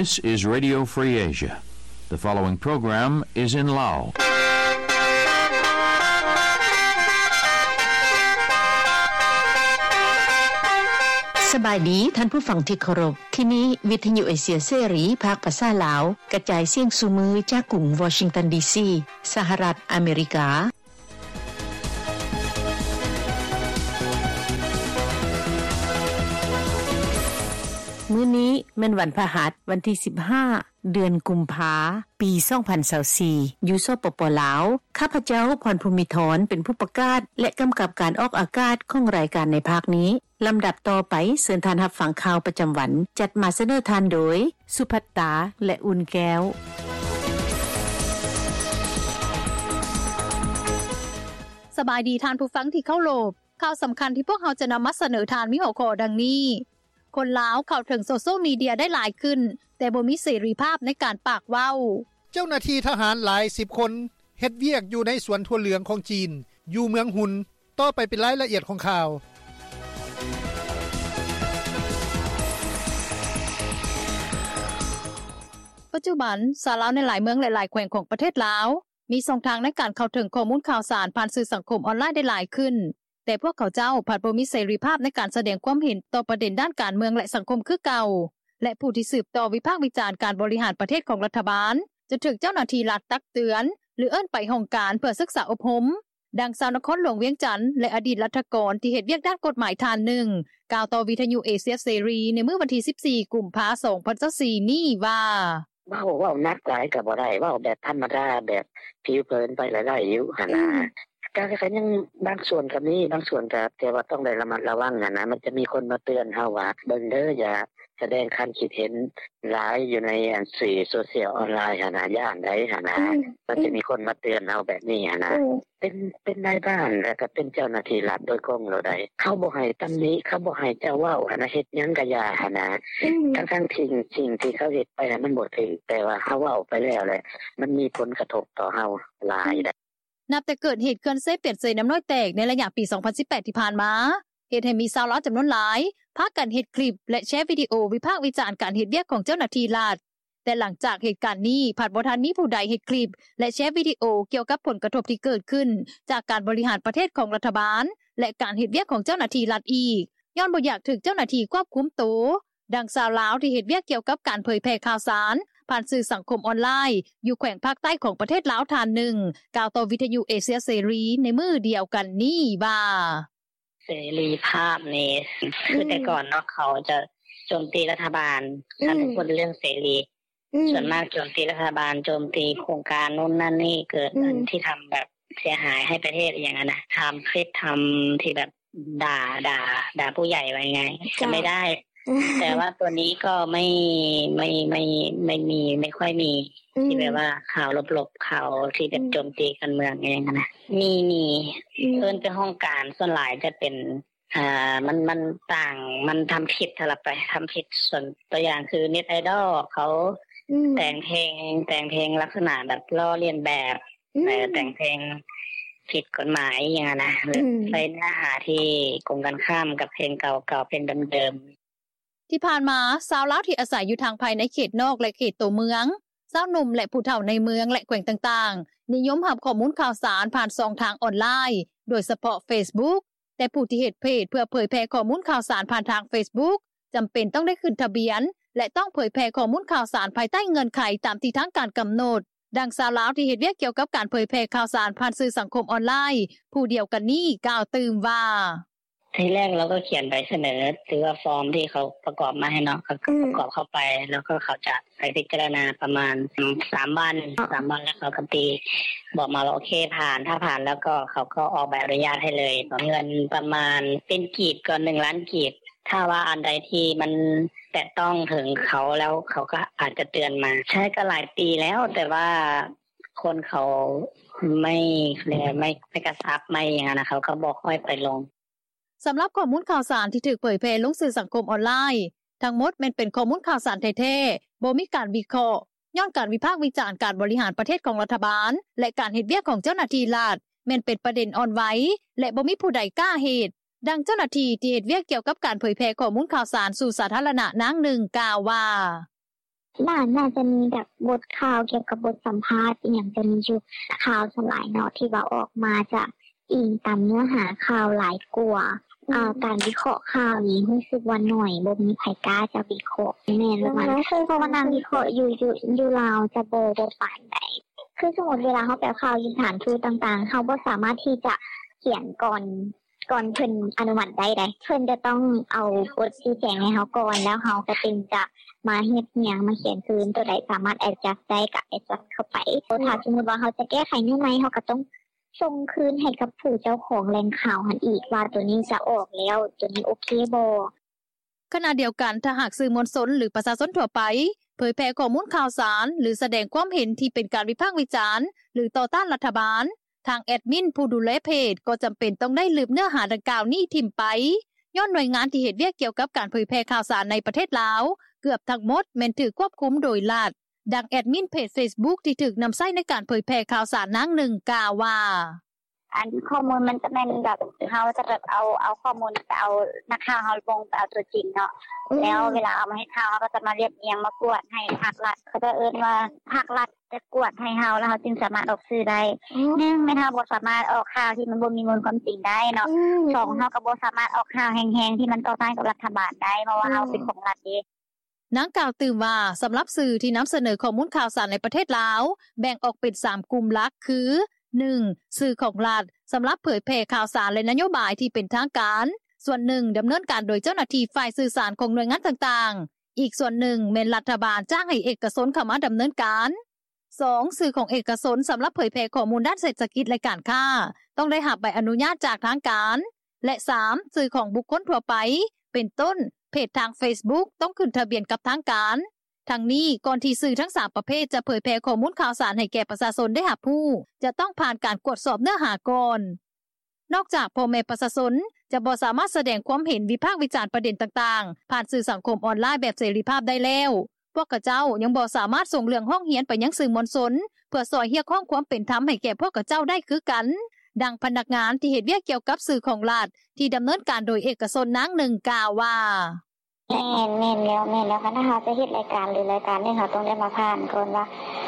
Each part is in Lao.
This is Radio Free Asia. The following program is in Lao. ສະບາຍດີທ່ານຜູ້ຟັງທີ່ເຄົາລົບ. ທີ່ນີ້ວິທະຍຸເອເຊຍເສລີ ພາກພາສາລາວ ກະຈາຍສຽງສູ່ມື້ຈາກກຸງວໍຊິງຕັນ ດີຊີ ສະຫະລັດອາເມລິກາ. ມື້ນີ້ແມ່ນວັນພະຫັດ ວັນທີສິບຫ້າ ເດືອນກຸມພາ ປີສອງພັນຊາວສີ່ ຢູ່ ສປປ ລາວ. ຂ້າພະເຈົ້າ ພອນພູມິທອນ ເປັນຜູ້ປະກາດ ແລະ ກຳກັບການອອກອາກາດຂອງລາຍການໃນພາກນີ້. ລຳດັບຕໍ່ໄປ ເຊີນທ່ານຮັບຟັງຂ່າວປະຈຳວັນ ຈັດມາສະເໜີທ່ານໂດຍ ສຸພັດຕາ ແລະ ອຸ່ນແກ້ວ. ສະບາຍດີທ່ານຜູ້ຟັງທີ່ເຄົາລົບ. ຂ່າວສຳຄັນທີ່ພວກເຮົາຈະນຳມາສະເໜີທ່ານມີຫົວຂໍ້ດັ່ງນີ້: ຄົນລາວເຂົ້າເຖິງໂຊຊຽວມີເດຍໄດ້ຫຼາຍຂຶ້ນ ແຕ່ບໍ່ມີເສລີພາບໃນການປາກເວົ້າ. ເຈົ້າໜ້າທີ່ທະຫານຫຼາຍສິບຄົນ ເຮັດວຽກຢູ່ໃນສວນຖົ່ວເຫຼືອງຂອງຈີນ ຢູ່ເມືອງຮຸນ. ຕໍ່ໄປເປັນລາຍລະອຽດຂອງຂ່າວ. ປັດຈຸບັນ ຊາວລາວໃນຫຼາຍເມືອງ ແລະ ຫຼາຍແຂວງຂອງປະເທດລາວ ມີຊ່ອງທາງໃນການເຂົ້າເຖິງຂໍ້ມູນຂ່າວສານຜ່ານສື່ສັງຄົມອອນລາຍໄດ້ຫຼາຍຂຶ້ນ, ແຕ່ພວກເຂົາເຈົ້າພັດບໍ່ມີເສລີພາບໃນການສະແດງຄວາມເຫັນຕໍ່ປະເດັນດ້ານການເມືອງ ແລະ ສັງຄົມຄືເກົ່າ, ແລະ ຜູ້ທີ່ສືບຕໍ່ວິພາກວິຈານການບໍລິຫານປະເທດຂອງລັດຖະບານ ຈະຖືກເຈົ້າໜ້າທີ່ລັດຕັກເຕືອນ ຫຼື ເອີ້ນໄປຫ້ອງການເພື່ອສຶກສາອົບຮົມ. ດັ່ງຊາວນະຄອນຫຼວງວຽງຈັນ ແລະ ອະດີດລັດຖະກອນທີ່ເຮັດວຽກດ້ານກົດໝາຍທ່ານໜຶ່ງ ກ່າວຕໍ່ວິທະຍຸເອເຊຍເສລີໃນມື້ວັນທີສິບສີ່ ກຸມພາ ສອງພັນຊາວສີ່ນີ້ວ່າ: ເວົ້າ ເວົ້າໜັກຫຼາຍກໍບໍ່ໄດ້, ເວົ້າແບບທຳມະດາ ແບບຜິວເຜີນໄປລະໄດ້ຢູ່ຫັ້ນນະ. ອືມ ກໍ ກໍຍັງບາງສ່ວນກໍມີ, ບາງສ່ວນກໍ ແຕ່ວ່າຕ້ອງໄດ້ລະມັດລະວັງຫັ້ນນະ. ມັນຈະມີຄົນມາເຕືອນເຮົາວ່າ ເບິ່ງເດີ ຢ່າ ສະແດງຄຳຄິດເຫັນຫຼາຍຢູ່ໃນອັນສື່ໂຊຊຽວອອນລາຍຫັ້ນນະ, ຢ້ານໃດຫັ້ນນະ. ອືມ ມັນຈະມີຄົນມາເຕືອນເຮົາແບບນີ້ຫັ້ນນະ. ອືມ ເປັນ ເປັນນາຍບ້ານ ແລ້ວກໍເປັນເຈົ້າໜ້າທີ່ລັດໂດຍກົງໂລດໃດ. ເຂົາບໍ່ໃຫ້ຕຳໜິ, ເຂົາບໍ່ໃຫ້ເຈົ້າເວົ້າຫັ້ນນະ, ເຮັດຫຍັງກໍຢ່າຫັ້ນນະ. ອືມ ທັງໆທີ່ສິ່ງທີ່ເຂົາເຮັດໄປຫັ້ນມັນບໍ່ຖືກ, ແຕ່ວ່າເຮົາເວົ້າໄປແລ້ວແຫຼະ ມັນມີຜົນກະທົບຕໍ່ເຮົາຫຼາຍໃດ. ອືມ ນັບແຕ່ເກີດເຫດເຂື່ອນເຊປຽນເຊນ້ຳນ້ອຍແຕກໃນໄລຍະປີສອງພັນສິບແປດທີ່ຜ່ານມາ, ເຮັດໃຫ້ມີຊາວລາວຈຳນວນຫຼາຍພາກັນເຮັດຄລິບ ແລະ ແຊວິດີໂອວິພາກວິຈານການເຮັດວຽກຂອງເຈົ້າໜ້າທີ່ລັດ. ແຕ່ຫຼັງຈາກເຫດການນີ້ ພັດບໍ່ທັນມີຜູ້ໃດເຮັດຄລິບ ແລະ ແຊວິດີໂອກ່ຽວກັບຜົນກະທົບທີ່ເກີດຂຶ້ນຈາກການບໍລິຫານປະເທດຂອງລັດຖະບານ ແລະ ການເຮັດວຽກຂອງເຈົ້າໜ້າທີ່ລັດອີກ, ຍ້ອນບໍ່ຢາກຖືກເຈົ້າໜ້າທີ່ຄວບຄຸມໂຕ. ດັ່ງຊາວລາວທີ່ເຮັດວຽກກ່ຽວກັບການເຜີຍແຜ່ຂ່າວສານຜ່ານສື່ສັງຄົມອອນລາຍ ຢູ່ແຂວງພາກໃຕ້ຂອງປະເທດລາວທ່ານໜຶ່ງ ກ່າວຕໍ່ວິທະຍຸເອເຊຍເສລີໃນມື້ດຽວກັນນີ້ວ່າ: ເສລີພາບນີ້ ອືມ ຄືແຕ່ກ່ອນເນາະ ເຂົາຈະໂຈມຕີລັດຖະບານ ອືມ ຄັນເວົ້າເລື່ອງເສລີ ອືມ ສ່ວນມາກໂຈມຕີລັດຖະບານ ໂຈມຕີໂຄງການໂນ້ນນັ້ນນີ້ ເກີດ ອືມ ອັນທີ່ທຳແບບເສຍຫາຍໃຫ້ປະເທດ ອີ່ຫຍັງຫັ້ນນະ. ທຳຄລິບ ທຳທີ່ແບບ ດ່າ ດ່າ ດ່າຜູ້ໃຫຍ່ ວ່າງ່າຍໆ ຈະ ຈະໄມ່ໄດ້. ແຕ່ວ່າຕົວນີ້ກໍໄມ່ ໄມ່ ໄມ່ ໄມ່ມີ ໄມ່ຄ່ອຍມີ ອືມ ທີ່ແບບວ່າຂ່າວລົບໆ ຂ່າວທີ່ແບບ ອືມ ໂຈມຕີການເມືອງອີ່ຫຍັງຫັ້ນນະ. ມີ ມີ ອືມ ເອີ້ນໄປຫ້ອງການ ສ່ວນຫຼາຍຈະເປັນ ອ່າ ມັນ ມັນຕ່າງ ມັນທຳຜິດຫັ້ນລະໄປ ທຳຜິດ. ສ່ວນຕົວຢ່າງຄືເນັດໄອດອລເຂົາ ອືມ ແຕ່ງເພງ ແຕ່ງເພງລັກສະນະແບບລໍ້ລຽນແບບ ອືມ ເອີ ແຕ່ງເພງຜິດກົດໝາຍອີ່ຫຍັງຫັ້ນນະ ອືມ ໃສ່ເນື້ອຫາທີ່ກົງກັນຂ້າມກັບເພງເກົ່າໆ ເພງເດີມໆ. ທີ່ຜ່ານມາ ຊາວລາວທີ່ອາໄສຢູ່ທາງພາຍໃນເຂດນອກ ແລະ ເຂດໂຕເມືອງ, ຊາວໜຸ່ມ ແລະ ຜູ້ເຖົ້າໃນເມືອງ ແລະ ແຂວງຕ່າງໆ ນິຍົມຮັບຂໍ້ມູນຂ່າວສານຜ່ານຊ່ອງທາງອອນລາຍ ໂດຍສະເພາະເຟສບຸກ. ແຕ່ຜູ້ທີ່ເຮັດເພຈເພື່ອເຜີຍແຜ່ຂໍ້ມູນຂ່າວສານຜ່ານທາງເຟສບຸກ ຈຳເປັນຕ້ອງໄດ້ຂຶ້ນທະບຽນ ແລະ ຕ້ອງເຜີຍແຜ່ຂໍ້ມູນຂ່າວສານພາຍໃຕ້ເງື່ອນໄຂຕາມທີ່ທາງການກຳນົດ. ດັ່ງຊາວລາວທີ່ເຮັດວຽກກ່ຽວກັບການເຜີຍແຜ່ຂ່າວສານຜ່ານສື່ສັງຄົມອອນລາຍ ຜູ້ດຽວກັນນີ້ກ່າວຕື່ມວ່າ: ທີແລກເຮົາກໍຂຽນໃບສະເໜີ ຫຼືວ່າຟອມທີ່ເຂົາປະກອບມາໃຫ້ເນາະ ເຮົາກໍ ອືມ ປະກອບເຂົ້າໄປ ແລ້ວກໍເຂົາຈະໄປພິຈາລະນາປະມານສາມວັນ ສາມວັນ ແລ້ວເຂົາກໍຕິ ບອກມາວ່າໂອເຄ ຜ່ານ ຖ້າຜ່ານແລ້ວກໍເຂົາກໍອອກໃບອະນຸຍາດໃຫ້ເລີຍ. ເງິນປະມານ ເປັນກີບກໍໜຶ່ງລ້ານກີບ ຖ້າວ່າອັນໃດທີ່ມັນແຕະຕ້ອງເຖິງເຂົາແລ້ວ ເຂົາກໍອາດຈະເຕືອນມາ. ໃຊ້ກໍຫຼາຍປີແລ້ວ ແຕ່ວ່າຄົນເຂົາໄມ່ ເຂົາເອີ້ນວ່າໄມ່ ໄມ່ກະຊັບ ໄມ່ຫຍັງຫັ້ນນະ ເຂົາກໍບໍ່ຄ່ອຍໄປລົງ. ສຳລັບຂໍ້ມູນຂ່າວສານທີ່ຖືກເຜີຍແຜ່ລົງສື່ສັງຄົມອອນລາຍ ທັງໝົດແມ່ນເປັນຂໍ້ມູນຂ່າວສານແທ້ໆ, ບໍ່ມີການວິເຄາະ ຍ້ອນການວິພາກວິຈານການບໍລິຫານປະເທດຂອງລັດຖະບານ ແລະ ການເຮັດວຽກຂອງເຈົ້າໜ້າທີ່ລັດ ແມ່ນເປັນປະເດັນອ່ອນໄຫວ ແລະ ບໍ່ມີຜູ້ໃດກ້າເຮັດ. ດັ່ງເຈົ້າໜ້າທີ່ທີ່ເຮັດວຽກກ່ຽວກັບການເຜີຍແຜ່ຂໍ້ມູນຂ່າວສານສູ່ສາທາລະນະນາງໜຶ່ງກ່າວວ່າ: ໜ້າ ໜ້າຈະມີແບບບົດຂ່າວກ່ຽວກັບບົດສຳພາດອີ່ຫຍັງຈະມີຢູ່ຂ່າວສ່ວນຫຼາຍເນາະ ທີ່ວ່າອອກມາຈະອີງຕາມເນື້ອຫາຂ່າວຫຼາຍກວ່າ ອືມ ການວິເຄາະຂ່າວນີ້ຮູ້ສຶກວ່າໜ້ອຍ ບໍ່ມີໃຜກ້າຈະວິເຄາະ. ແມ່ນ ແມ່ນ ແມ່ນ ເພາະວ່ານັ່ງວິເຄາະຢູ່ ຢູ່ ຢູ່ລາວຈະບໍ່ ບໍ່ປານໃດ. ຄືສົມມຸດເວລາເຮົາໄປເອົາຂ່າວຢູ່ສະຖານທູດຕ່າງໆ ເຮົາບໍ່ສາມາດທີ່ຈະຂຽນກ່ອນ ກ່ອນເພິ່ນອະນຸມັດໄດ້ໃດ. ເພິ່ນຈະຕ້ອງເອົາບົດຊີ້ແຈງໃຫ້ເຮົາກ່ອນ ແລ້ວເຮົາກໍຈຶ່ງຈະມາຮຽບຮຽງ ມາຂຽນຄືນ ໂຕໃດສາມາດ adjust ໄດ້ກໍ adjust ເຂົ້າໄປ. ຖ້າສົມມຸດວ່າເຮົາຈະແກ້ໄຂແນວໃໝ່ ເຮົາກໍຕ້ອງສົ່ງຄືນໃຫ້ກັບຜູ້ເຈົ້າຂອງແຫຼ່ງຂ່າວຫັ້ນອີກ ວ່າໂຕນີ້ຈະອອກແລ້ວ ໂຕນີ້ໂອເຄບໍ່. ຂະນະດຽວກັນ ຖ້າຫາກສື່ມວນຊົນ ຫຼື ປະຊາຊົນທົ່ວໄປ ເຜີຍແຜ່ຂໍ້ມູນຂ່າວສານ ຫຼື ສະແດງຄວາມເຫັນທີ່ເປັນການວິພາກວິຈານ ຫຼື ຕໍ່ຕ້ານລັດຖະບານ, ທາງແອດມິນຜູ້ດູແລເພຈກໍຈຳເປັນຕ້ອງໄດ້ລຶບເນື້ອຫາດັ່ງກ່າວນີ້ຖິ້ມໄປ, ຍ້ອນໜ່ວຍງານທີ່ເຮັດວຽກກ່ຽວກັບການເຜີຍແຜ່ຂ່າວສານໃນປະເທດລາວ ເກືອບທັງໝົດແມ່ນຖືກຄວບຄຸມໂດຍລັດ. ດັ່ງແອດມິນເພຈເຟສບຸກທີ່ຖືກນຳໃຊ້ໃນການເຜີຍແຜ່ຂ່າວສານນາງໜຶ່ງກ່າວວ່າ: ອັນຂໍ້ມູນມັນຈະແມ່ນແບບ ເຮົາຈະແບບເອົາ ເອົາຂໍ້ມູນໄປເອົາ ນັກຂ່າວເຮົາລົງໄປເອົາຕົວຈິງເນາະ ອືມ ແລ້ວເວລາເອົາມາເຮັດຂ່າວ ເຮົາກໍຈະມາລຽບລຽງມາກວດໃຫ້ພາກລັດ ເຂົາເຈົ້າເອີ້ນວ່າພາກລັດຈະກວດໃຫ້ເຮົາ ແລ້ວເຮົາຈຶ່ງສາມາດອອກສື່ໄດ້. ອືມ ໜຶ່ງແມ່ນເຮົາບໍ່ສາມາດອອກຂ່າວທີ່ມັນບໍ່ມີມູນຄວາມຈິງໄດ້ເນາະ ອືມ ສອງເຮົາກໍບໍ່ສາມາດອອກຂ່າວແຮງໆທີ່ມັນຕໍ່ຕ້ານກັບລັດຖະບານໄດ້ ເພາະວ່າເຮົາເປັນຂອງລັດເດ້. ນາງກ່າວຕື່ມວ່າ ສຳລັບສື່ທີ່ນຳສະເໜີຂໍ້ມູນຂ່າວສານໃນປະເທດລາວ ແບ່ງອອກເປັນສາມກຸ່ມຫຼັກຄື: ໜຶ່ງ ສື່ຂອງລັດ ສຳລັບເຜີຍແຜ່ຂ່າວສານ ແລະ ນະໂຍບາຍທີ່ເປັນທາງການ, ສ່ວນໜຶ່ງ ດຳເນີນການໂດຍເຈົ້າໜ້າທີ່ຝ່າຍສື່ສານຂອງໜ່ວຍງານຕ່າງໆ, ອີກສ່ວນໜຶ່ງແມ່ນລັດຖະບານຈ້າງໃຫ້ເອກະຊົນເຂົ້າມາດຳເນີນການ. ສອງ ສື່ຂອງເອກະຊົນ ສຳລັບເຜີຍແຜ່ຂໍ້ມູນດ້ານເສດຖະກິດ ແລະ ການຄ້າ ຕ້ອງໄດ້ຮັບໃບອະນຸຍາດຈາກທາງການ ແລະ ສາມ ສື່ຂອງບຸກຄົນທົ່ວໄປ ເປັນຕົ້ນ ເພຈທາງເຟສບຸກ ຕ້ອງຂຶ້ນທະບຽນກັບທາງການ. ທັງນີ້ ກ່ອນທີ່ສື່ທັງສາມປະເພດຈະເຜີຍແຜ່ຂໍ້ມູນຂ່າວສານໃຫ້ແກ່ປະຊາຊົນໄດ້ຮັບຮູ້ ຈະຕ້ອງຜ່ານການກວດສອບເນື້ອຫາກ່ອນ. ນອກຈາກພໍ່ແມ່ປະຊາຊົນຈະບໍ່ສາມາດສະແດງຄວາມເຫັນ ວິພາກວິຈານປະເດັນຕ່າງໆ ຜ່ານສື່ສັງຄົມອອນລາຍແບບເສລີພາບໄດ້ແລ້ວ, ພວກຂະເຈົ້າຍັງບໍ່ສາມາດສົ່ງເລື່ອງຮ້ອງຮຽນໄປຍັງສື່ມວນຊົນ ເພື່ອຊ່ອຍຮຽກຮ້ອງຄວາມເປັນທຳໃຫ້ແກ່ພວກຂະເຈົ້າໄດ້ຄືກັນ. ດັ່ງພະນັກງານທີ່ເຮັດວຽກກ່ຽວກັບສື່ຂອງລັດ ທີ່ດຳເນີນການໂດຍເອກະຊົນນາງໜຶ່ງກ່າວວ່າ: ແມ່ນ ແມ່ນແລ້ວ ແມ່ນແລ້ວ ຄັນຖ້າເຮົາຈະເຮັດລາຍການ ຫຼື ລາຍການໜຶ່ງ ເຮົາຕ້ອງໄດ້ມາຜ່ານກ່ອນວ່າ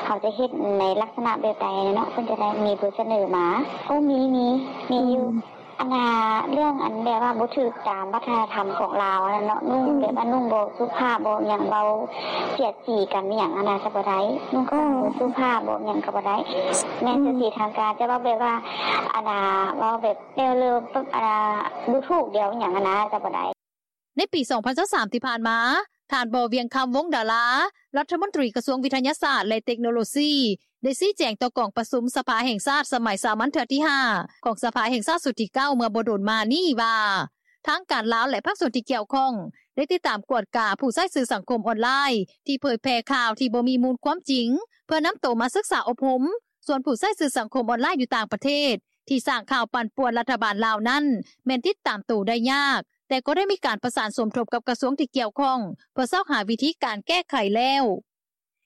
ເຮົາຈະເຮັດໃນລັກສະນະແບບໃດເນາະ ເພິ່ນຈະໄດ້ມີບົດສະເໜີມາ. ໂອ້ ມີ ມີ ມີຢູ່ ອືມ ອັນນ່າ ເລື່ອງອັນແບບວ່າບໍ່ຖືກຕາມວັດທະນະທຳຂອງລາວຫັ້ນເນາະ ນຸ່ງ ອືມ ແບບວ່ານຸ່ງບໍ່ສຸພາບ ບໍ່ຫຍັງ ເວົ້າສຽດສີກັນອີ່ຫຍັງຫັ້ນນະ ຈະບໍ່ໄດ້ ນຸ່ງ ເອີ ບໍ່ສຸພາບ ບໍ່ຫຍັງກໍບໍ່ໄດ້ ແມ່ນ ອືມ ຊື່ສີທາງການ ຈະເວົ້າແບບວ່າ ອັນນ່າ ເວົ້າແບບແນວເລີ ອັນນ່າ ດູຖູກດຽວອີ່ຫຍັງຫັ້ນນະ ຈະບໍ່ໄດ້. ໃນປີສອງພັນຊາວສາມທີ່ຜ່ານມາ, ທ່ານ ບໍ່ວຽງຄຳ ວົງດາລາ ລັດຖະມົນຕີກະຊວງວິທະຍາສາດ ແລະ ເຕັກໂນໂລຊີ ໄດ້ຊີ້ແຈງຕໍ່ກອງປະຊຸມສະພາແຫ່ງຊາດສະໄໝສາມັນເທື່ອທີຫ້າ ຂອງສະພາແຫ່ງຊາດຊຸດທີເກົ້າ ເມື່ອບໍ່ດົນມານີ້ວ່າ ທາງການລາວ ແລະ ພາກສ່ວນທີ່ກ່ຽວຂ້ອງ ໄດ້ຕິດຕາມກວດກາຜູ້ໃຊ້ສື່ສັງຄົມອອນລາຍ ທີ່ເຜີຍແຜ່ຂ່າວທີ່ບໍ່ມີມູນຄວາມຈິງ ເພື່ອນຳໂຕມາສຶກສາອົບຮົມ. ສ່ວນຜູ້ໃຊ້ສື່ສັງຄົມອອນລາຍຢູ່ຕ່າງປະເທດ ທີ່ສ້າງຂ່າວປັ່ນປ່ວນລັດຖະບານລາວນັ້ນ ແມ່ນຕິດຕາມໂຕໄດ້ຍາກ, ແຕ່ກໍໄດ້ມີການປະສານສົມທົບກັບກະຊວງທີ່ກ່ຽວຂ້ອງ ເພື່ອຊອກຫາວິທີການແກ້ໄຂແລ້ວ.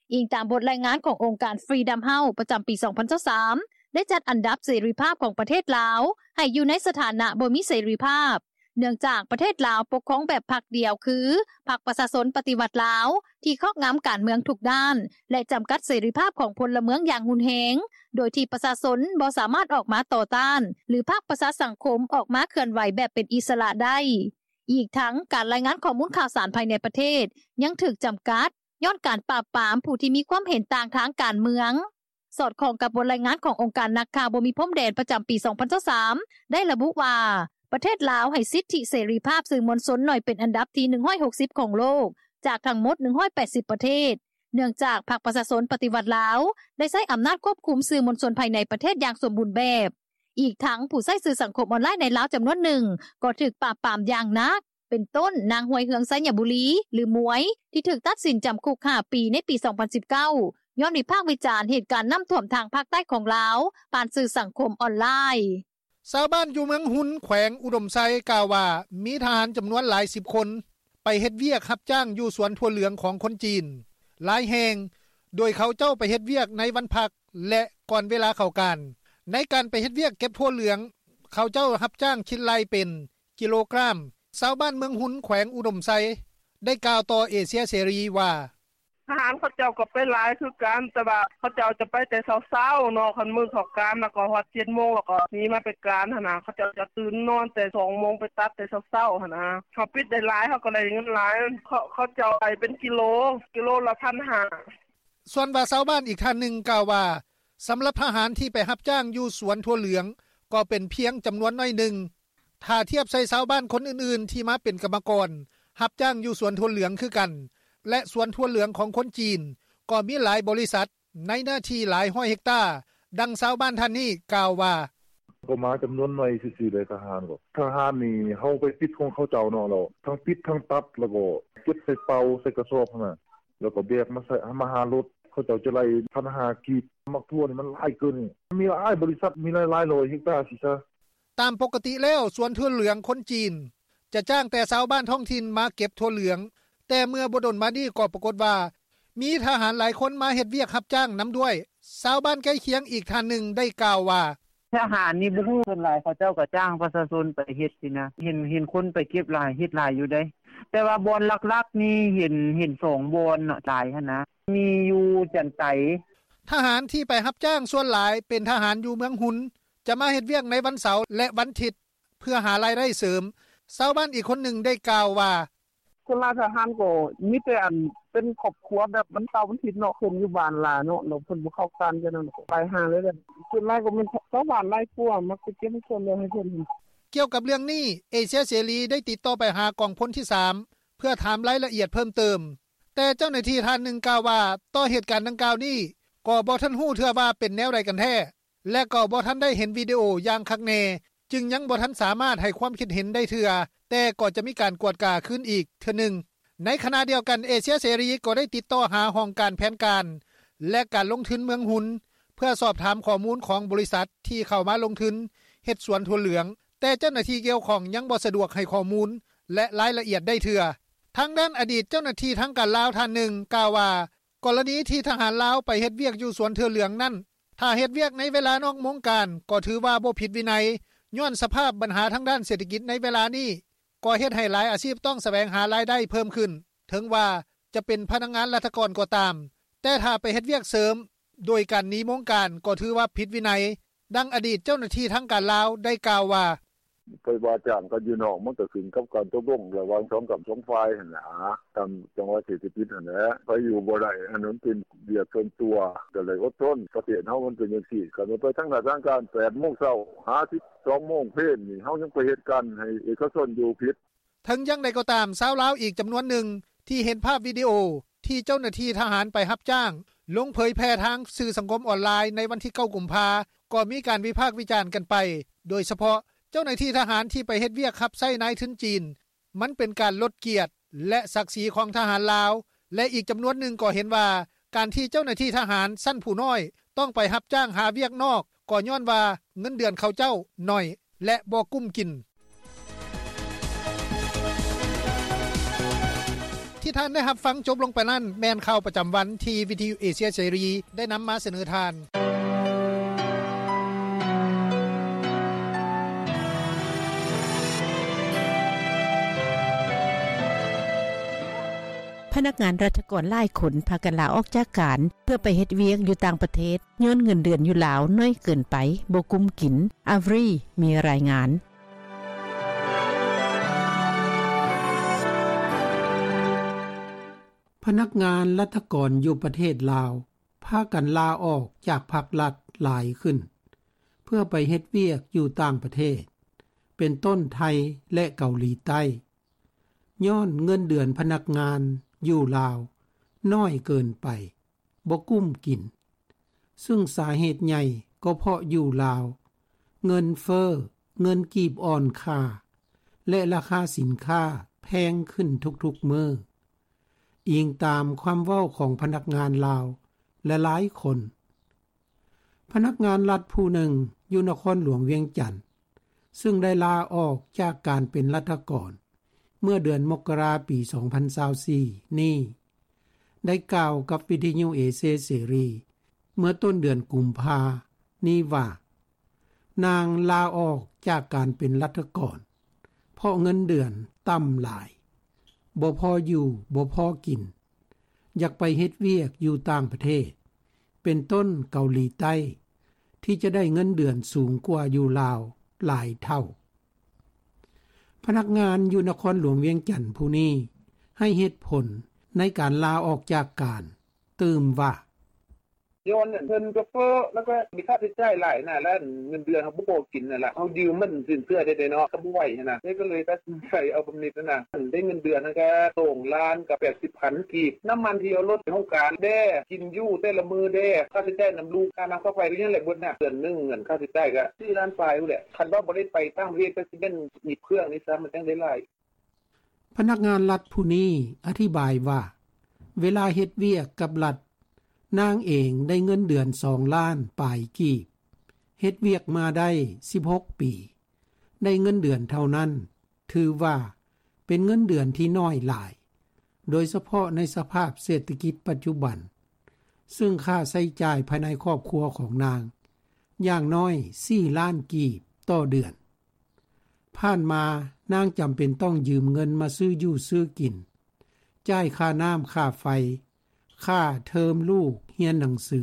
ອີງຕາມບົດລາຍງານຂອງອົງການ Freedom House ປະຈຳປີສອງພັນຊາວສາມ ໄດ້ຈັດອັນດັບເສລີພາບຂອງປະເທດລາວ ໃຫ້ຢູ່ໃນສະຖານະບໍ່ມີເສລີພາບ, ເນື່ອງຈາກປະເທດລາວປົກຄອງແບບພັກດຽວ ຄື ພັກປະຊາຊົນປະຕິວັດລາວ ທີ່ຄອບງຳການເມືອງທຸກດ້ານ ແລະ ຈຳກັດເສລີພາບຂອງພົນລະເມືອງຢ່າງຮຸນແຮງ, ໂດຍທີ່ປະຊາຊົນບໍ່ສາມາດອອກມາຕໍ່ຕ້ານ ຫຼື ພາກປະຊາສັງຄົມອອກມາເຄື່ອນໄຫວແບບເປັນອິດສະຫຼະໄດ້. ອີກທັງ ການລາຍງານຂໍ້ມູນຂ່າວສານພາຍໃນປະເທດຍັງຖືກຈຳກັດ ຍ້ອນການປາບປາມຜູ້ທີ່ມີຄວາມເຫັນຕ່າງທາງການເມືອງ. ສອດຄ່ອງກັບບົດລາຍງານຂອງອົງການນັກຂ່າວບໍ່ມີພົມແດນປະຈຳປີສອງພັນຊາວສາມ ໄດ້ລະບຸວ່າ ປະເທດລາວໃຫ້ສິດທິເສລີພາບສື່ມວນຊົນໜ້ອຍເປັນອັນດັບທີໜຶ່ງຮ້ອຍຫົກສິບຂອງໂລກ ຈາກທັງໝົດໜຶ່ງຮ້ອຍແປດສິບປະເທດ, ເນື່ອງຈາກພັກປະຊາຊົນປະຕິວັດລາວ ໄດ້ໃຊ້ອຳນາດຄວບຄຸມສື່ມວນຊົນພາຍໃນປະເທດຢ່າງສົມບູນແບບ. ອີກທັງ ຜູ້ໃຊ້ສື່ສັງຄົມອອນລາຍໃນລາວຈຳນວນໜຶ່ງ ກໍຖືກປາບປາມຢ່າງໜັກ, ເປັນຕົ້ນ ນາງ ຮວຍເຮືອງ ໄຊຍະບູລີ ຫຼື ໝວຍ ທີ່ຖືກຕັດສິນຈຳຄຸກຫ້າປີໃນປີສອງພັນສິບເກົ້າ ຍ້ອນວິພາກວິຈານເຫດການນ້ຳຖ້ວມທາງພາກໃຕ້ຂອງລາວ ຜ່ານສື່ສັງຄົມອອນລາຍ. ຊາວບ້ານຢູ່ເມືອງຮຸນ ແຂວງອຸດົມໄຊ ກ່າວວ່າ ມີທະຫານຈຳນວນຫຼາຍສິບຄົນ ໄປເຮັດວຽກຮັບຈ້າງຢູ່ສວນຖົ່ວເຫຼືອງຂອງຄົນຈີນຫຼາຍແຫ່ງ, ໂດຍເຂົາເຈົ້າໄປເຮັດວຽກໃນວັນພັກ ແລະ ກ່ອນເວລາເຂົ້າການ. ໃນການໄປເຮັດວຽກເກັບຖົ່ວເຫຼືອງ, ເຂົາເຈົ້າຮັບຈ້າງຄິດໄລ່ເປັນກິໂລກຣາມ. ຊາວບ້ານເມືອງຮຸນ ແຂວງອຸດົມໄຊ ໄດ້ກ່າວຕໍ່ເອເຊຍເສລີວ່າ: ທະຫານເຂົາເຈົ້າກໍໄປຫຼາຍຄືກັນ ແຕ່ວ່າເຂົາເຈົ້າຈະໄປແຕ່ເຊົ້າໆເນາະ ຄັນມື້ເຂົ້າການ ແລ້ວກໍຮອດເຈັດໂມງ ແລ້ວກໍໜີມາໄປການຫັ້ນນະ. ເຂົາເຈົ້າຈະຕື່ນນອນແຕ່ສອງໂມງ ໄປຕັດແຕ່ເຊົ້າໆຫັ້ນນະ. ເຮົາປິດໄດ້ຫຼາຍ ເຮົາກໍໄດ້ເງິນຫຼາຍ. ເຂົາ ເຂົາເຈົ້າໄລ່ເປັນກິໂລ ກິໂລລະພັນຫ້າ. ສ່ວນວ່າຊາວບ້ານອີກທ່ານໜຶ່ງກ່າວວ່າ ສຳລັບທະຫານທີ່ໄປຮັບຈ້າງຢູ່ສວນຖົ່ວເຫຼືອງ ກໍເປັນພຽງຈຳນວນໜ້ອຍໜຶ່ງ ຖ້າທຽບໃສ່ຊາວບ້ານຄົນອື່ນໆທີ່ມາເປັນກຳມະກອນຮັບຈ້າງຢູ່ສວນຖົ່ວເຫຼືອງຄືກັນ ແລະ ສວນຖົ່ວເຫຼືອງຂອງຄົນຈີນ ກໍມີຫຼາຍບໍລິສັດໃນເນື້ອທີ່ຫຼາຍຮ້ອຍເຮັກຕາ. ດັ່ງຊາວບ້ານທ່ານນີ້ກ່າວວ່າ: ກໍມາຈຳນວນໜ້ອຍຊື່ໆ ເດ ທະຫານກໍ ທະຫານນີ້ເຮົາໄປປິດຂອງເຂົາເຈົ້າເນາະ ແລ້ວທັງປິດທັງຕັດ ແລ້ວກໍເກັບໃສ່ເປົາໃສ່ກະສອບຫັ້ນນະ ແລ້ວກໍແບກມາໃສ່ ມາຫາລົດ ເຂົາເຈົ້າຈະໄລ່ພັນຫ້າກີບ. ໝາກຖົ່ວນີ້ມັນຫຼາຍເກີນນີ້ ມີຫຼາຍບໍລິສັດ ມີຫຼາຍໆຮ້ອຍເຮັກຕາຊີ້ຊະ. ຕາມປົກກະຕິແລ້ວ ສວນຖົ່ວເຫຼືອງຄົນຈີນ ຈະຈ້າງແຕ່ຊາວບ້ານທ້ອງຖິ່ນມາເກັບຖົ່ວເຫຼືອງ ແຕ່ເມື່ອບໍ່ດົນມານີ້ກໍປາກົດວ່າ ມີທະຫານຫຼາຍຄົນມາເຮັດວຽກຮັບຈ້າງນຳດ້ວຍ. ຊາວບ້ານໃກ້ຄຽງອີກທ່ານໜຶ່ງໄດ້ກ່າວວ່າ: ທະຫານນີ້ບໍ່ຮູ້ ສ່ວນຫຼາຍເຂົາເຈົ້າກໍຈ້າງປະຊາຊົນໄປເຮັດຊີ້ນະ ເຫັນ ເຫັນຄົນໄປເກັບຫຼາຍ ເຮັດຫຼາຍຢູ່ເດ ແຕ່ວ່າບ່ອນຫຼັກໆນີ້ເຫັນ ເຫັນສອງບ່ອນເນາະ ຫຼາຍຫັ້ນນະ ມີຢູ່ຈັນໄຕ. ທະຫານທີ່ໄປຮັບຈ້າງສ່ວນຫຼາຍເປັນທະຫານຢູ່ເມືອງຮຸນ ຈະມາເຮັດວຽກໃນວັນເສົາ ແລະ ວັນທິດ ເພື່ອຫາລາຍໄດ້ເສີມ. ຊາວບ້ານອີກຄົນໜຶ່ງໄດ້ກ່າວວ່າ: ສ່ວນຫຼາຍທະຫານກໍມີແຕ່ອັນເປັນຄອບຄົວ ແບບວັນເສົາວັນທິດເນາະ ເພິ່ນຢູ່ບ້ານຫຼາຍເນາະ ແລ້ວເພິ່ນບໍ່ເຂົ້າການຈັ່ງນັ້ນ ກໍໄປຫາເລີຍແຫຼະ. ສ່ວນຫຼາຍກໍແມ່ນຊາວບ້ານຫຼາຍກວ່າ ມັກໄປເກັບສ່ວນແບ່ງໃຫ້ເພິ່ນ. ກ່ຽວກັບເລື່ອງນີ້ ເອເຊຍເສລີໄດ້ຕິດຕໍ່ໄປຫາກອງພົນທີສາມ ເພື່ອຖາມລາຍລະອຽດເພີ່ມເຕີມ, ແຕ່ເຈົ້າໜ້າທີ່ທ່ານໜຶ່ງກ່າວວ່າ ຕໍ່ເຫດການດັ່ງກ່າວນີ້ ກໍບໍ່ທັນຮູ້ເທື່ອວ່າເປັນແນວໃດກັນແທ້ ແລະ ກໍບໍ່ທັນໄດ້ເຫັນວິດີໂອຢ່າງຄັກແນ່ ຈຶ່ງຍັງບໍ່ທັນສາມາດໃຫ້ຄວາມຄິດເຫັນໄດ້ເທື່ອ, ແຕ່ກໍຈະມີການກວດກາຄືນອີກເທື່ອໜຶ່ງ. ໃນຂະນະດຽວກັນ ເອເຊຍເສລີກໍໄດ້ຕິດຕໍ່ຫາຫ້ອງການແຜນການ ແລະ ການລົງທຶນເມືອງຮຸນ ເພື່ອສອບຖາມຂໍ້ມູນຂອງບໍລິສັດທີ່ເຂົ້າມາລົງທຶນເຮັດສວນຖົ່ວເຫຼືອງ, ແຕ່ເຈົ້າໜ້າທີ່ກ່ຽວຂ້ອງຍັງບໍ່ສະດວກໃຫ້ຂໍ້ມູນ ແລະ ລາຍລະອຽດໄດ້ເທື່ອ. ທາງດ້ານອະດີດເຈົ້າໜ້າທີ່ທາງການລາວທ່ານໜຶ່ງກ່າວວ່າ ກໍລະນີທີ່ທະຫານລາວໄປເຮັດວຽກຢູ່ສວນຖົ່ວເຫຼືອງນັ້ນ ຖ້າເຮັດວຽກໃນເວລານອກໂມງການ ກໍຖືວ່າບໍ່ຜິດວິໄນ, ຍ້ອນສະພາບບັນຫາທາງດ້ານເສດຖະກິດໃນເວລານີ້ ກໍເຮັດໃຫ້ຫຼາຍອາຊີບຕ້ອງສະແຫວງຫາລາຍໄດ້ເພີ່ມຂຶ້ນ, ເຖິງວ່າຈະເປັນພະນັກງານລັດຖະກອນກໍຕາມ, ແຕ່ຖ້າໄປເຮັດວຽກເສີມໂດຍການໜີໂມງການ ກໍຖືວ່າຜິດວິໄນ. ດັ່ງອະດີດເຈົ້າໜ້າທີ່ທາງການລາວໄດ້ກ່າວວ່າ: ໄປວ່າຈ້າງກັນຢູ່ນອກ ມັນກໍຂຶ້ນກັບການຕົກລົງລະຫວ່າງສອງກ້ຳສອງຝ່າຍຫັ້ນນະ ຕາມຈັງຫວະເສດຖະກິດຫັ້ນແຫຼະ ໃຜຢູ່ບໍ່ໄດ້ ອັນນັ້ນເປັນວຽກສ່ວນຕົວ ກໍໄດ້ອົດທົນ. ປະເທດເຮົາມັນເປັນຈັ່ງຊີ້ ຄັນວ່າໄປທາງໜ້າທາງການ ແປດໂມງເຊົ້າ ຫາສິບສອງໂມງເພນນີ້ ເຮົາຍັງໄປເຮັດການໃຫ້ເອກະຊົນຢູ່ຜິດ. ເຖິງຢ່າງໃດກໍຕາມ ຊາວລາວອີກຈຳນວນໜຶ່ງທີ່ເຫັນພາບວິດີໂອທີ່ເຈົ້າໜ້າທີ່ທະຫານໄປຮັບຈ້າງ ລົງເຜີຍແຜ່ທາງສື່ສັງຄົມອອນລາຍໃນວັນທີເກົ້າ ກຸມພາ ກໍມີການວິພາກວິຈານກັນໄປ, ໂດຍສະເພາະເຈົ້າໜ້າທີ່ທະຫານທີ່ໄປເຮັດວຽກຮັບໃຊ້ນາຍທຶນຈີນ ມັນເປັນການລົດກຽດ ແລະ ສັກສີຂອງທະຫານລາວ ແລະ ອີກຈຳນວນໜຶ່ງກໍເຫັນວ່າ ການທີ່ເຈົ້າໜ້າທີ່ທະຫານຊັ້ນຜູ້ນ້ອຍຕ້ອງໄປຮັບຈ້າງຫາວຽກນອກ ກໍຍ້ອນວ່າເງິນເດືອນເຂົາເຈົ້າໜ້ອຍ ແລະ ບໍ່ກຸ້ມກິນ. ທີ່ທ່ານໄດ້ຮັບຟັງຈົບລົງໄປນັ້ນ ແມ່ນຂ່າວປະຈຳວັນທີ່ວິທະຍຸເອເຊຍເສລີໄດ້ນຳມາສະເໜີທ່ານ. ພະນັກງານລັດຖະກອນຫຼາຍຄົນພາກັນລາອອກຈາກການ ເພື່ອໄປເຮັດວຽກຢູ່ຕ່າງປະເທດ ຍ້ອນເງິນເດືອນຢູ່ລາວໜ້ອຍເກີນໄປ, ບໍ່ກຸ້ມກິນ. ອາວຣີ ມີລາຍງານ. ພະນັກງານລັດຖະກອນຢູ່ປະເທດລາວ ພາກັນລາອອກຈາກພັກລັດຫຼາຍຂຶ້ນ ເພື່ອໄປເຮັດວຽກຢູ່ຕ່າງປະເທດ ເປັນຕົ້ນໄທ ແລະ ເກົາຫຼີໃຕ້ ຍ້ອນເງິນເດືອນພະນັກງານຢູ່ລາວໜ້ອຍເກີນໄປ, ບໍ່ກຸ້ມກິນ, ຊຶ່ງສາເຫດໃຫຍ່ກໍເພາະຢູ່ລາວ ເງິນເຟີ້, ເງິນກີບອ່ອນຄ່າ ແລະ ລາຄາສິນຄ້າແພງຂຶ້ນທຸກໆມື້, ອີງຕາມຄວາມເວົ້າຂອງພະນັກງານລາວຫຼາຍໆຄົນ. ພະນັກງານລັດຜູ້ໜຶ່ງຢູ່ນະຄອນຫຼວງວຽງຈັນ ຊຶ່ງໄດ້ລາອອກຈາກການເປັນລັດຖະກອນ ເມື່ອເດືອນມົກກະລາ ປີສອງພັນຊາວສີ່ນີ້ ໄດ້ກ່າວກັບວິທະຍຸເອເຊຍເສລີ ເມື່ອຕົ້ນເດືອນກຸມພານີ້ວ່າ ນາງລາອອກຈາກການເປັນລັດຖະກອນ ເພາະເງິນເດືອນຕ່ຳຫຼາຍ, ບໍ່ພໍຢູ່, ບໍ່ພໍກິນ, ຢາກໄປເຮັດວຽກຢູ່ຕ່າງປະເທດ ເປັນຕົ້ນເກົາຫຼີໃຕ້ ທີ່ຈະໄດ້ເງິນເດືອນສູງກວ່າຢູ່ລາວຫຼາຍເທົ່າ. ພະນັກງານຢູ່ນະຄອນຫຼວງວຽງຈັນຜູ້ນີ້ ໃຫ້ເຫດຜົນໃນການລາອອກຈາກການຕື່ມວ່າ: ຍ້ອນເງິນເຟີ້ ແລ້ວກໍມີຄ່າໃຊ້ຈ່າຍຫຼາຍນະ ແລ້ວເງິນເດືອນເຮົາບໍ່ພໍກິນຫັ້ນລະ ເຮົາຢືມມັນສິນເຊື່ອໄດ້ເນາະ ກໍບໍ່ໄຫວຫັ້ນນະ ເລີຍກໍເລີຍຕັດສິນໃຈເອົາບຳເນັດຫັ້ນນະ ໄດ້ເງິນເດືອນຫັ້ນກໍສອງລ້ານກັບແປດສິບພັນກີບ ນ້ຳມັນທີ່ເອົາລົດໄປໂຮງການແດ່ ກິນຢູ່ແຕ່ລະມື້ແດ່ ຄ່າໃຊ້ຈ່າຍນຳລູກ ຄ່ານ້ຳຄ່າໄຟ ກໍຍັງແຫຼະເບິດນະ ເດືອນໜຶ່ງເງິນຄ່າໃຊ້ຈ່າຍກໍສີ່ລ້ານປາຍພຸ້ນແຫຼະ ຄັນວ່າບໍ່ໄດ້ໄປຕ່າງປະເທດກໍຊິແມ່ນອີບເຄື່ອງນີ້ຊ້ຳ ມັນຈັ່ງໄດ້ຫຼາຍ. ພະນັກງານລັດຜູ້ນີ້ອະທິບາຍວ່າ ເວລາເຮັດວຽກກັບລັດ ນາງເອງໄດ້ເງິນເດືອນສອງລ້ານປາຍກີບ ເຮັດວຽກມາໄດ້ສິບຫົກປີ ໄດ້ເງິນເດືອນເທົ່ານັ້ນ ຖືວ່າເປັນເງິນເດືອນທີ່ໜ້ອຍຫຼາຍ ໂດຍສະເພາະໃນສະພາບເສດຖະກິດປັດຈຸບັນ ຊຶ່ງຄ່າໃຊ້ຈ່າຍພາຍໃນຄອບຄົວຂອງນາງ ຢ່າງໜ້ອຍສີ່ລ້ານກີບຕໍ່ເດືອນ. ຜ່ານມານາງຈຳເປັນຕ້ອງຢືມເງິນມາຊື້ຢູ່ຊື້ກິນ, ຈ່າຍຄ່ານ້ຳຄ່າໄຟ, ຄ່າເທີມລູກຮຽນໜັງສື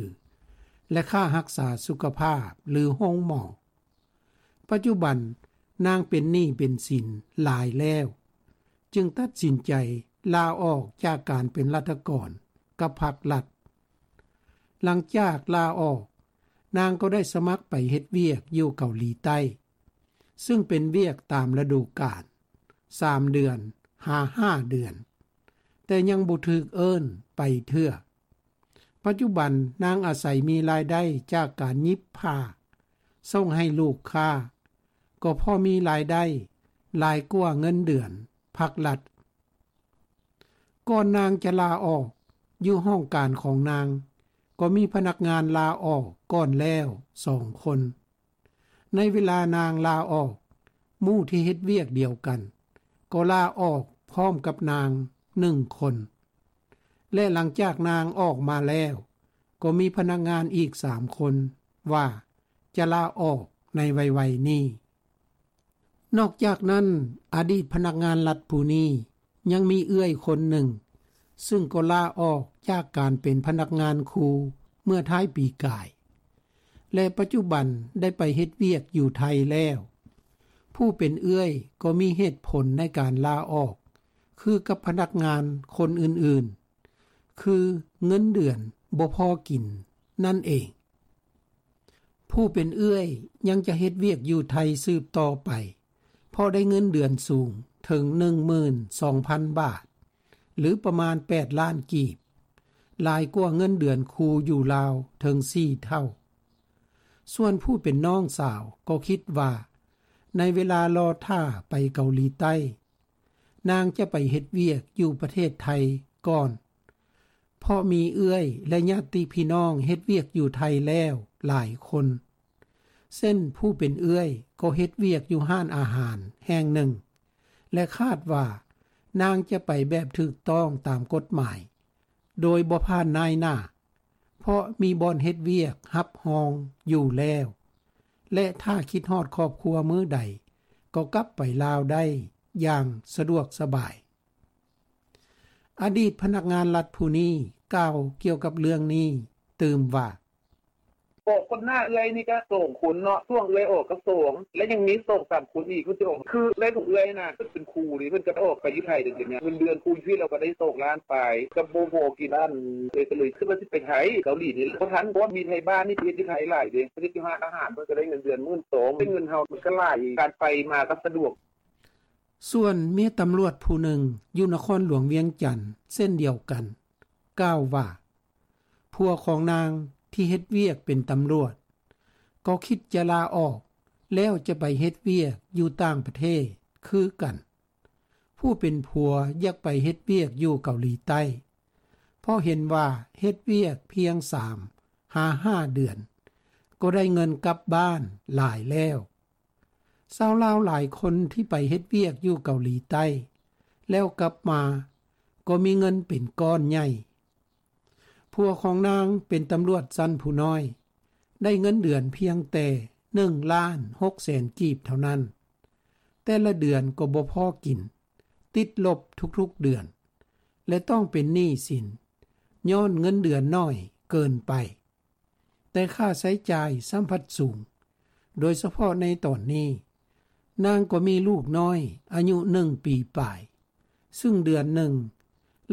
ແລະ ຄ່າຮັກສາສຸຂະພາບ ຫຼື ໂຮງໝໍ. ປັດຈຸບັນນາງເປັນໜີ້ເປັນສິນຫຼາຍແລ້ວ ຈຶ່ງຕັດສິນໃຈລາອອກຈາກການເປັນລັດຖະກອນກັບພັກລັດ. ຫຼັງຈາກລາອອກ, ນາງກໍໄດ້ສະໝັກໄປເຮັດວຽກຢູ່ເກົາຫຼີໃຕ້, ຊຶ່ງເປັນວຽກຕາມລະດູການ, ສາມເດືອນຫາຫ້າເດືອນ, ແຕ່ຍັງບໍ່ຖືກເອີ້ນໄປເທື່ອ. ປັດຈຸບັນນາງອາໄສມີລາຍໄດ້ຈາກການຫຍິບຜ້າສົ່ງໃຫ້ລູກຄ້າ, ກໍພໍມີລາຍໄດ້ຫຼາຍກວ່າເງິນເດືອນພັກລັດ. ກ່ອນນາງຈະລາອອກ, ຢູ່ຫ້ອງການຂອງນາງກໍມີພະນັກງານລາອອກກ່ອນແລ້ວສອງຄົນ. ໃນເວລານາງລາອອກ, ໝູ່ທີ່ເຮັດວຽກດຽວກັນກໍລາອອກພ້ອມກັບນາງໜຶ່ງຄົນ ແລະ ຫຼັງຈາກນາງອອກມາແລ້ວ, ກໍມີພະນັກງານອີກສາມຄົນວ່າຈະລາອອກໃນໄວໆນີ້. ນອກຈາກນັ້ນ, ອະດີດພະນັກງານລັດຜູ້ນີ້ຍັງມີເອື້ອຍຄົນໜຶ່ງ ຊຶ່ງກໍລາອອກຈາກການເປັນພະນັກງານຄູເມື່ອທ້າຍປີກາຍ ແລະ ປັດຈຸບັນໄດ້ໄປເຮັດວຽກຢູ່ໄທແລ້ວ. ຜູ້ເປັນເອື້ອຍກໍມີເຫດຜົນໃນການລາອອກຄືກັບພະນັກງານຄົນອື່ນໆ ຄືເງິນເດືອນບໍ່ພໍກິນນັ້ນເອງ. ຜູ້ເປັນເອື້ອຍຍັງຈະເຮັດວຽກຢູ່ໄທສືບຕໍ່ໄປ ເພາະໄດ້ເງິນເດືອນສູງເຖິງໜຶ່ງໝື່ນສອງພັນບາດ ຫຼື ປະມານແປດລ້ານກີບ, ຫຼາຍກວ່າເງິນເດືອນຄູຢູ່ລາວເຖິງສີ່ເທົ່າ. ສ່ວນຜູ້ເປັນນ້ອງສາວກໍຄິດວ່າ ໃນເວລາລໍຖ້າໄປເກົາຫຼີໃຕ້, ນາງຈະໄປເຮັດວຽກຢູ່ປະເທດໄທກ່ອນ, ເພາະມີເອື້ອຍ ແລະ ຍາດຕິພີ່ນ້ອງເຮັດວຽກຢູ່ໄທແລ້ວຫຼາຍຄົນ. ເຊັ່ນ ຜູ້ເປັນເອື້ອຍກໍເຮັດວຽກຢູ່ຮ້ານອາຫານແຫ່ງໜຶ່ງ ແລະ ຄາດວ່ານາງຈະໄປແບບຖືກຕ້ອງຕາມກົດໝາຍ ໂດຍບໍ່ຜ່ານນາຍໜ້າ, ເພາະມີບ່ອນເຮັດວຽກຮັບຮອງຢູ່ແລ້ວ ແລະ ຖ້າຄິດຮອດຄອບຄົວມື້ໃດ ກໍກັບໄປລາວໄດ້ຢ່າງສະດວກສະບາຍ. ອະດີດພະນັກງານລັດຜູ້ນີ້ກ່າວກ່ຽວກັບເລື່ອງນີ້ຕື່ມວ່າ: ອອກກ່ອນໜ້າເອື້ອຍນີ້ກະສອງຄົນເນາະ, ຊ່ວງເອື້ອຍອອກກະສອງ ແລະ ຍັງມີສອງສາມຄົນອີກ ເພິ່ນຊິອອກ ຄືເອື້ອຍຂອງເອື້ອຍຫັ້ນນະ ເພິ່ນເປັນຄູເດ ເພິ່ນກະໄດ້ອອກໄປຢູ່ໄທເດ້ ເປັນຫຍັງ ເງິນເດືອນຄູຢູ່ພີ້ລາວກະໄດ້ສອງລ້ານປາຍ ກະບໍ່ພໍກິນ ອັນ ເອື້ອຍກະເລີຍຄິດວ່າຊິໄປໄທ ເກົາຫຼີນີ້ແຫຼະ ບໍ່ທັນ ເພາະວ່າມີໄທບ້ານນີ້ໄປເຮັດຢູ່ໄທຫຼາຍເດ້ ໄປເຮັດຢູ່ຮ້ານອາຫານ ເພິ່ນກະໄດ້ເງິນເດືອນໝື່ນສອງ ເປັນເງິນເຮົາມັນກະຫຼາຍ ການໄປມາກະສະດວກ. ສ່ວນເມຍຕຳຫຼວດຜູ້ໜຶ່ງຢູ່ນະຄອນຫຼວງວຽງຈັນເຊັ່ນດຽວກັນ ກ່າວວ່າ ຜົວຂອງນາງທີ່ເຮັດວຽກເປັນຕຳຫຼວດ ກໍຄິດຈະລາອອກ ແລ້ວຈະໄປເຮັດວຽກຢູ່ຕ່າງປະເທດຄືກັນ. ຜູ້ເປັນຜົວຢາກໄປເຮັດວຽກຢູ່ເກົາຫຼີໃຕ້ ເພາະເຫັນວ່າເຮັດວຽກພຽງສາມຫາຫ້າເດືອນ ກໍໄດ້ເງິນກັບບ້ານຫຼາຍແລ້ວ. ຊາວລາວຫຼາຍຄົນທີ່ໄປເຮັດວຽກຢູ່ເກົາຫຼີໃຕ້ ແລ້ວກັບມາກໍມີເງິນເປັນກ້ອນໃຫຍ່. ຜົວຂອງນາງເປັນຕຳຫຼວດຊັ້ນຜູ້ນ້ອຍ ໄດ້ເງິນເດືອນພຽງແຕ່ໜຶ່ງລ້ານຫົກແສນກີບເທົ່ານັ້ນ, ແຕ່ລະເດືອນກໍບໍ່ພໍກິນ, ຕິດລົບທຸກໆເດືອນ ແລະ ຕ້ອງເປັນໜີ້ສິນ ຍ້ອນເງິນເດືອນໜ້ອຍເກີນໄປ, ແຕ່ຄ່າໃຊ້ຈ່າຍຊ້ຳພັດສູງ, ໂດຍສະເພາະໃນຕອນນີ້, ນາງກໍມີລູກນ້ອຍອາຍຸໜຶ່ງປີປາຍ, ຊຶ່ງເດືອນໜຶ່ງ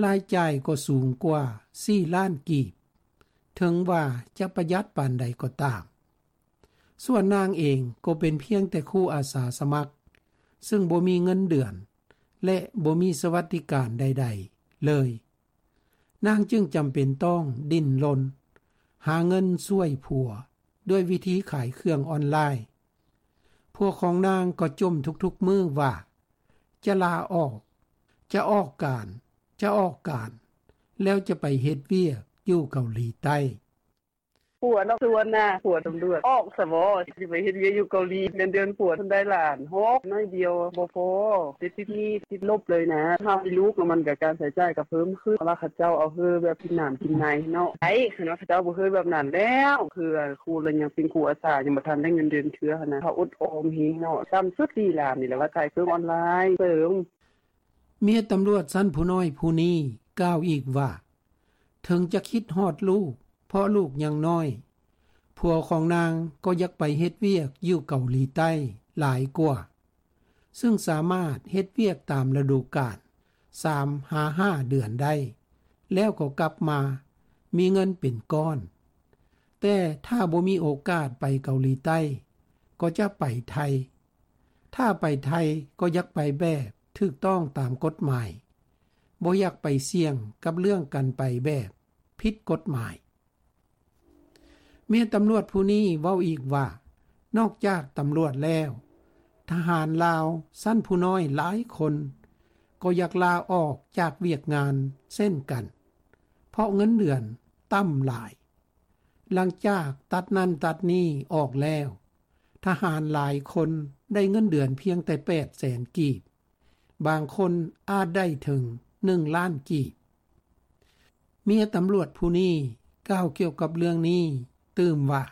ລາຍຈ່າຍກໍສູງກວ່າສີ່ລ້ານກີບ, ເຖິງວ່າຈະປະຢັດປານໃດກໍຕາມ. ສ່ວນນາງເອງກໍເປັນພຽງແຕ່ຄູອາສາສະໝັກ, ຊຶ່ງບໍ່ມີເງິນເດືອນ ແລະ ບໍ່ມີສະຫວັດດີການໃດໆເລີຍ. ນາງຈຶ່ງຈຳເປັນຕ້ອງດີ້ນລົນຫາເງິນຊ່ວຍຜົວດ້ວຍວິທີຂາຍເຄື່ອງອອນລາຍ. ຜົວຂອງນາງກໍຈົ່ມທຸກໆມື້ວ່າ ຈະລາອອກ, ຈະອອກການ, ຈະອອກການ, ແລ້ວຈະໄປເຮັດວຽກຢູ່ເກົາຫຼີໃຕ້. ຜົວເນາະ ຊວນນາ ຜົວຕຳຫຼວດ ອອກສະບໍ ຊິໄປເຮັດວຽກຢູ່ເກົາຫຼີ ເງິນເດືອນຜົວເພິ່ນໄດ້ລ້ານຫົກ ໜ້ອຍດຽວບໍ່ພໍ ຕິດໜີ້ຕິດລົບເລີຍນະ. ຖ້າມີລູກແລ້ວມັນກະ ການໃຊ້ຈ່າຍກະເພີ່ມຂຶ້ນ ເພາະວ່າເຂົາເຈົ້າເອົາເຮີແບບກິນນ້ຳກິນໃນເນາະ ໄດ້ ຄັນວ່າເຂົາເຈົ້າບໍ່ເຮີແບບນັ້ນແລ້ວ ຄືຄູລະຍັງເປັນຄູອາສາ ຍັງບໍ່ທັນໄດ້ເງິນເດືອນເທື່ອຫັ້ນນະ ເຂົາອົດອອມແຮງເນາະ. ຕ່ຳສຸດສີ່ລ້ານນີ້ແຫຼະ ວ່າຂາຍເຄື່ອງອອນລາຍເສີມ. ເມຍຕຳຫຼວດຊັ້ນຜູ້ນ້ອຍຜູ້ນີ້ກ່າວອີກວ່າ ເຖິງຈະຄິດຮອດລູກ ເພາະລູກຍັງນ້ອຍ, ຜົວຂອງນາງກໍຢາກໄປເຮັດວຽກຢູ່ເກົາຫຼີໃຕ້ຫຼາຍກວ່າ, ຊຶ່ງສາມາດເຮັດວຽກຕາມລະດູການ ສາມຫາຫ້າເດືອນໄດ້, ແລ້ວກໍກັບມາມີເງິນເປັນກ້ອນ. ແຕ່ຖ້າບໍ່ມີໂອກາດໄປເກົາຫຼີໃຕ້ ກໍຈະໄປໄທ. ຖ້າໄປໄທກໍຢາກໄປແບບຖືກຕ້ອງຕາມກົດໝາຍ, ບໍ່ຢາກໄປສ່ຽງກັບເລື່ອງການໄປແບບຜິດກົດໝາຍ. ເມຍຕຳຫຼວດຜູ້ນີ້ເວົ້າອີກວ່າ ນອກຈາກຕຳຫຼວດແລ້ວ, ທະຫານລາວຊັ້ນຜູ້ນ້ອຍຫຼາຍຄົນກໍຢາກລາອອກຈາກວຽກງານເຊັ່ນກັນ, ເພາະເງິນເດືອນຕ່ຳຫຼາຍ. ຫຼັງຈາກຕັດນັ້ນຕັດນີ້ອອກແລ້ວ, ທະຫານຫຼາຍຄົນໄດ້ເງິນເດືອນພຽງແຕ່ແປດແສນກີບ, ບາງຄົນອາດໄດ້ເຖິງໜຶ່ງລ້ານກີບ. ເມຍຕຳຫຼວດຜູ້ນີ້ກ່າວກ່ຽວກັບເລື່ອງນີ້ຕື່ມວ່າ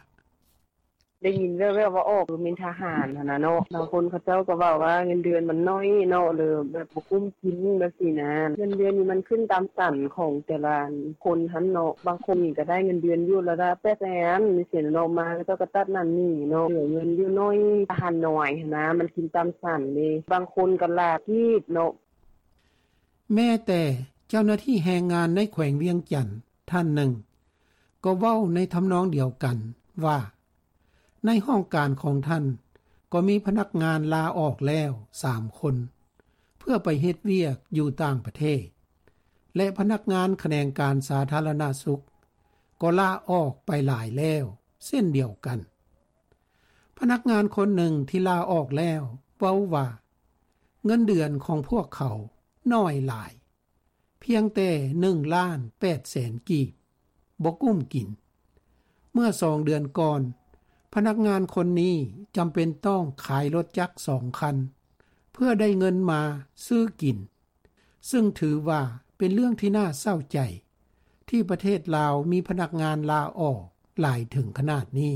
ໄດ້ຍິນແວ່ວໆວ່າອອກເປັນທະຫານຫັ້ນນະເນາະ, ບາງຄົນເຂົາເຈົ້າກໍເວົ້າວ່າເງິນເດືອນມັນໜ້ອຍເນາະ ຫຼືແບບບໍ່ກຸ້ມກິນແບບຊີ້ນະ. ເງິນເດືອນນີ້ມັນຂຶ້ນຕາມສັນຂອງແຕ່ລະຄົນຫັ້ນເນາະ, ບາງຄົນນີ້ກໍໄດ້ເງິນເດືອນຢູ່ລະດັບແປດແສນ ຈັ່ງຊີ້ນະເນາະ, ມາເຂົາເຈົ້າກໍຕັດນັ້ນນີ້ເນາະ, ເຫຼືອເງິນຢູ່ໜ້ອຍ ທະຫານນ້ອຍຫັ້ນນະ ມັນກິນຕາມສັນເດ້, ບາງຄົນກໍຫຼ້າກີບເນາະ. ແມ້ແຕ່ເຈົ້າໜ້າທີ່ແຮງງານໃນແຂວງວຽງຈັນທ່ານໜຶ່ງ ກໍເວົ້າໃນທຳນອງດຽວກັນວ່າ ໃນຫ້ອງການຂອງທ່ານກໍມີພະນັກງານລາອອກແລ້ວສາມຄົນ ເພື່ອໄປເຮັດວຽກຢູ່ຕ່າງປະເທດ ແລະ ພະນັກງານຂະແໜງການສາທາລະນະສຸກກໍລາອອກໄປຫຼາຍແລ້ວເຊັ່ນດຽວກັນ. ພະນັກງານຄົນໜຶ່ງທີ່ລາອອກແລ້ວເວົ້າວ່າ ເງິນເດືອນຂອງພວກເຂົາໜ້ອຍຫຼາຍ, ພຽງແຕ່ໜຶ່ງລ້ານແປດແສນກີບ, ບໍ່ກຸ້ມກິນ. ເມື່ອສອງເດືອນກ່ອນ, ພະນັກງານຄົນນີ້ຈຳເປັນຕ້ອງຂາຍລົດຈັກສອງຄັນ ເພື່ອໄດ້ເງິນມາຊື້ກິນ, ຊຶ່ງຖືວ່າເປັນເລື່ອງທີ່ໜ້າເສົ້າໃຈ ທີ່ປະເທດລາວມີພະນັກງານລາອອກຫຼາຍເຖິງຂະໜາດນີ້.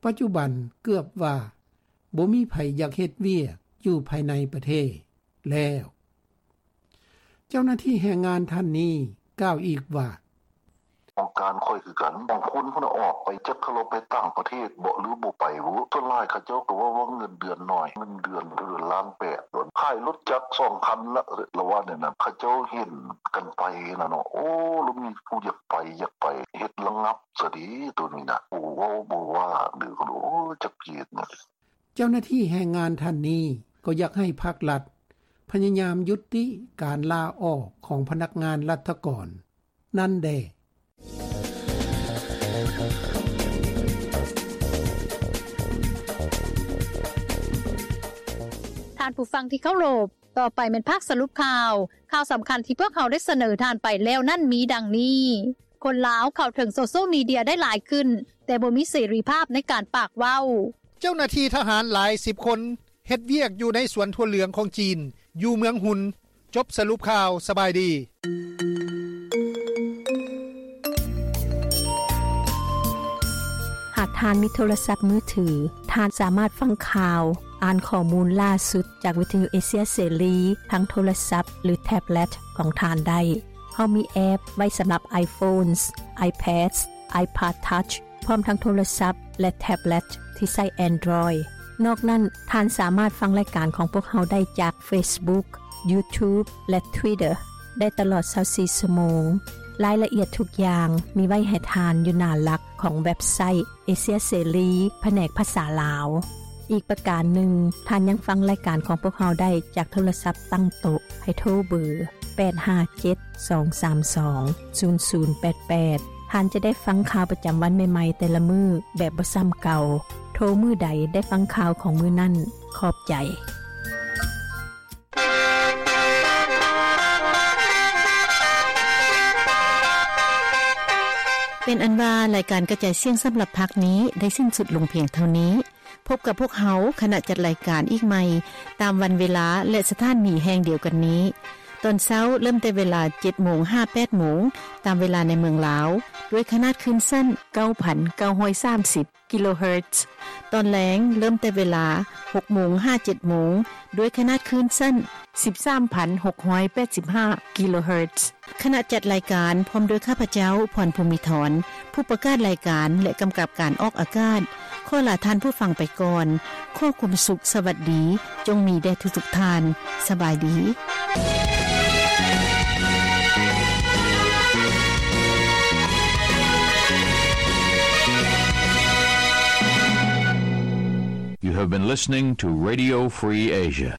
ປັດຈຸບັນເກືອບວ່າບໍ່ມີໃຜຢາກເຮັດວຽກຢູ່ພາຍໃນປະເທດແລ້ວ. ເຈົ້າໜ້າທີ່ແຮງງານທ່ານນີ້ກ່າວອີກວ່າ ຫ້ອງການຂ້ອຍຄືກັນ, ບາງຄົນພຸ້ນນະອອກໄປ ຈັກເຂົາເຈົ້າໄປຕ່າງປະເທດເບາະ ຫຼືບໍ່ໄປບຸ, ສ່ວນຫຼາຍເຂົາເຈົ້າກໍເວົ້າວ່າເງິນເດືອນໜ້ອຍ, ເງິນເດືອນເດືອນລ້ານແປດ, ຂາຍລົດຈັກສອງຄັນລະ, ລະວ່າແນວນັ້ນ, ເຂົາເຈົ້າເຫັນກັນໄປຫັ້ນນະເນາະ. ໂອ້ ລະມີຜູ້ຢາກໄປ, ຢາກໄປ, ເຮັດລະງັບຊະເດໂຕນີ້ນະ, ໂອ້ ເວົ້າບໍ່ວ່າເດີ, ໂອ້ ຈັກຊິເຮັດແນວໃດ. ເຈົ້າໜ້າທີ່ແຮງງານທ່ານນີ້ກໍຢາກໃຫ້ພາກລັດພະຍາຍາມຍຸຕິການລາອອກຂອງພະນັກງານລັດຖະກອນນັ້ນແດ່. ທ່ານຜູ້ຟັງທີ່ເຄົາລົບ, ຕໍ່ໄປແມ່ນພາກສະຫຼຸບຂ່າວ. ຂ່າວສຳຄັນທີ່ພວກເຮົາໄດ້ສະເໜີທ່ານໄປແລ້ວນັ້ນມີດັ່ງນີ້. ຄົນລາວເຂົ້າເຖິງໂຊຊຽວມີເດຍໄດ້ຫຼາຍຂຶ້ນ, ແຕ່ບໍ່ມີເສລີພາບໃນການປາກເວົ້າ. ເຈົ້າໜ້າທີ່ທະຫານຫຼາຍສິບຄົນເຮັດວຽກຢູ່ໃນສວນຖົ່ວເຫຼືອງຂອງຈີນ ຢູ່ເມືອງຮຸນ. ຈົບສະຫຼຸບຂ່າວ. ສະບາຍດີ. ຫາກທ່ານມີໂທລະສັບມືຖື, ທ່ານສາມາດຟັງຂ່າວ, ອ່ານຂໍ້ມູນລ່າສຸດຈາກວິທະຍຸເອເຊຍເສລີ ທາງໂທລະສັບ ຫຼື ແທັບເລັດຂອງທ່ານໄດ້. ເຮົາມີແອັບໄວ້ສຳລັບ iPhones, iPads, iPad Touch ພ້ອມທັງໂທລະສັບ ແລະ ແທັບເລັດທີ່ໃຊ້ Android. ນອກນັ້ນ, ທ່ານສາມາດຟັງລາຍການຂອງພວກເຮົາໄດ້ຈາກ Facebook, YouTube ແລະ Twitter ໄດ້ຕະຫຼອດຊາວສີ່ຊົ່ວໂມງ. ລາຍລະອຽດທຸກຢ່າງມີໄວ້ໃຫ້ທ່ານຢູ່ໜ້າຫຼັກຂອງເວັບໄຊ ເອເຊຍເສລີ ພະແນກພາສາລາວ. ອີກປະການໜຶ່ງ, ທ່ານຍັງຟັງລາຍການຂອງພວກເຮົາໄດ້ຈາກໂທລະສັບຕັ້ງໂຕະ ໃຫ້ໂທເບີ ແປດຫ້າເຈັດ ສອງສາມສອງ ສູນສູນແປດແປດ. ທ່ານຈະໄດ້ຟັງຂ່າວປະຈຳວັນໃໝ່ໆແຕ່ລະມື້ແບບບໍ່ຊ້ຳເກົ່າ. ໂທມື້ໃດໄດ້ຟັງຂ່າວຂອງມື້ນັ້ນ. ຂອບໃຈ. ເປັນອັນວ່າ ລາຍການກະຈາຍສຽງສຳລັບພາກນີ້ໄດ້ສິ້ນສຸດລົງພຽງເທົ່ານີ້. ພົບກັບພວກເຮົາ ຄະນະຈັດລາຍການອີກໃໝ່ ຕາມວັນເວລາ ແລະ ສະຖານີແຫ່ງດຽວກັນນີ້. ຕອນເຊົ້າເລີ່ມແຕ່ເວລາເຈັດໂມງຫາແປດໂມງ ຕາມເວລາໃນເມືອງລາວ ດ້ວຍຂະໜາດຄື້ນສັ້ນ ເກົ້າພັນເກົ້າຮ້ອຍສາມສິບ ກິໂລເຮີດ. ຕອນແລງເລີ່ມແຕ່ເວລາຫົກໂມງຫາເຈັດໂມງ ດ້ວຍຂະໜາດຄື້ນສັ້ນ ສິບສາມພັນຫົກຮ້ອຍແປດສິບຫ້າ ກິໂລເຮີດ. ຄະນະຈັດລາຍການ ພ້ອມດ້ວຍຂ້າພະເຈົ້າ ພອນ ພູມີທອນ ຜູ້ປະກາດລາຍການ ແລະ ກຳກັບການອອກອາກາດ ຂໍລາທ່ານຜູ້ຟັງໄປກ່ອນ. ຂໍຄວາມສຸກສະຫວັດດີ ຈົ່ງມີແດ່ທຸກໆທ່ານ. ສະບາຍດີ. You have been listening to Radio Free Asia.